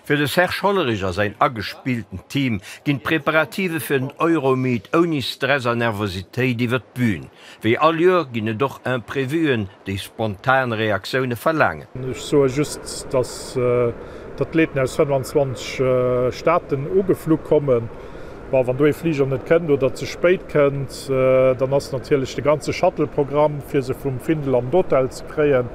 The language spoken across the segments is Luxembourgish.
Fir de Serge Hollerich a säin agespillten Team ginn d'Preparative fir den Euromeet ouni Stress a Nervositéit iwwer d'Bün. Wéi all Joer ginn et och Imprevuen, déi spontan Reaktioune verlaangen. Ech soe just, datt d'Athleten aus 25 Staaten ugeflu kommen. Bon, wann do ee Fliger net kënnt oder ze spéit kënnt, dann ass natierlech de ganze Shuttle-Programm, fir se vum Findel an d'Hotel ze kréien,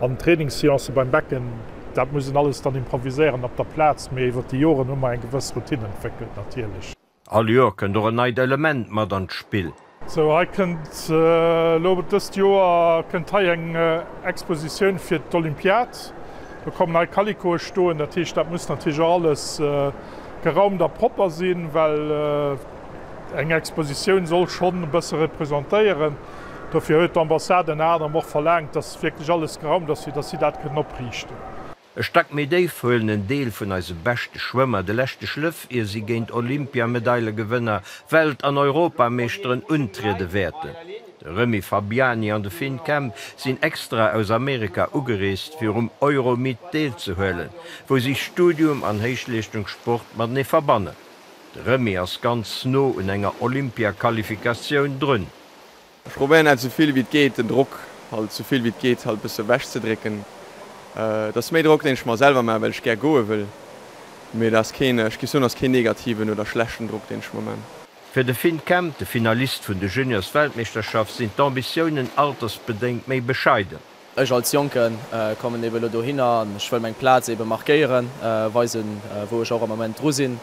an d'Trainingsseancë beim Becken, Dat muss een alles dann improviséieren op der Plaz, mee iwwer déi Joren hu mer eng gewëss Routine entwéckelt natierlech. All Joer kënnt och en neit Element mat an d'Spill. Sou, hei kënnt elo dëst Joer kënnt hei eng Expositioun fir d'Olympiad. Do kommen hei Kalikoe stoen. Dat heescht, dat muss natierlech och alles geraumt a propper sinn, well eng Expositioun soll schonn e bësse representéieren. Dofir huet d'Ambassade ënner anerem och verlaangt, dass wierklech alles geraumt ass, fir dass si dat kënnen opriichten. E Stack méi déif huelen en Deel vun eise beschte Schwëmmer de leschte Schlëff, ier si géint Olympiamedailegewënner, Welt an Europameeschteren untriede wäerten. De Remy Fabiani an de Finn Kemp sinn extra aus Amerika ugereest, fir um Euromeet deelzehuelen, wou si Studium an Héichleeschtungssport matenee verbannen. De Remy ass ganz no un enger Olympiaqualifikatioun drun. Ech probéieren halt souvill wéi et geet den Drock halt souvill wéi et geet halt bësse wech ze drécken. Et ass méi Drock deen ech mer selwer maachen well ech gär goe wëll, mee et ass keen, ech géif soen ass keen negativen oder schlechten Drock deen ech mer maan. Fir de Finn Kemp, de Finalist vun de Juniors-Weltmeeschterschaft, sinn d'Ambitiounen altersbedéngt méi bescheiden. Ech als Jonke kommen eben elo dohinner an ech wëll meng Plaz eben markéieren, weisen wou ech och am Ament dru sinn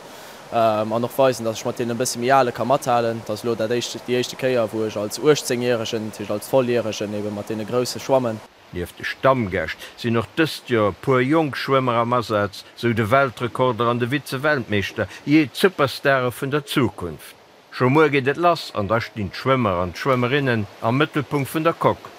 an och weisen, dass ech mat deenen e bësse méi Ale ka mathalen. Et ass elo dat éischt, déi éischte Kéier wou ech als 18 Järegen, dat heescht als Volljäregen eben mat deene Grousse schwammen. Nieft de Stammgäscht sinn och dëst Joer e puer jonk Schwëmmer am Asaz, sou de Weltrekorder an de Vize-Weltmeeschter, jee d'Superstare vun der Zukunft. Scho muer geet et lass an da stinn d'Schwëmmer an d'Schwëmmerinnen am Mëttelpunkt vun der Coque.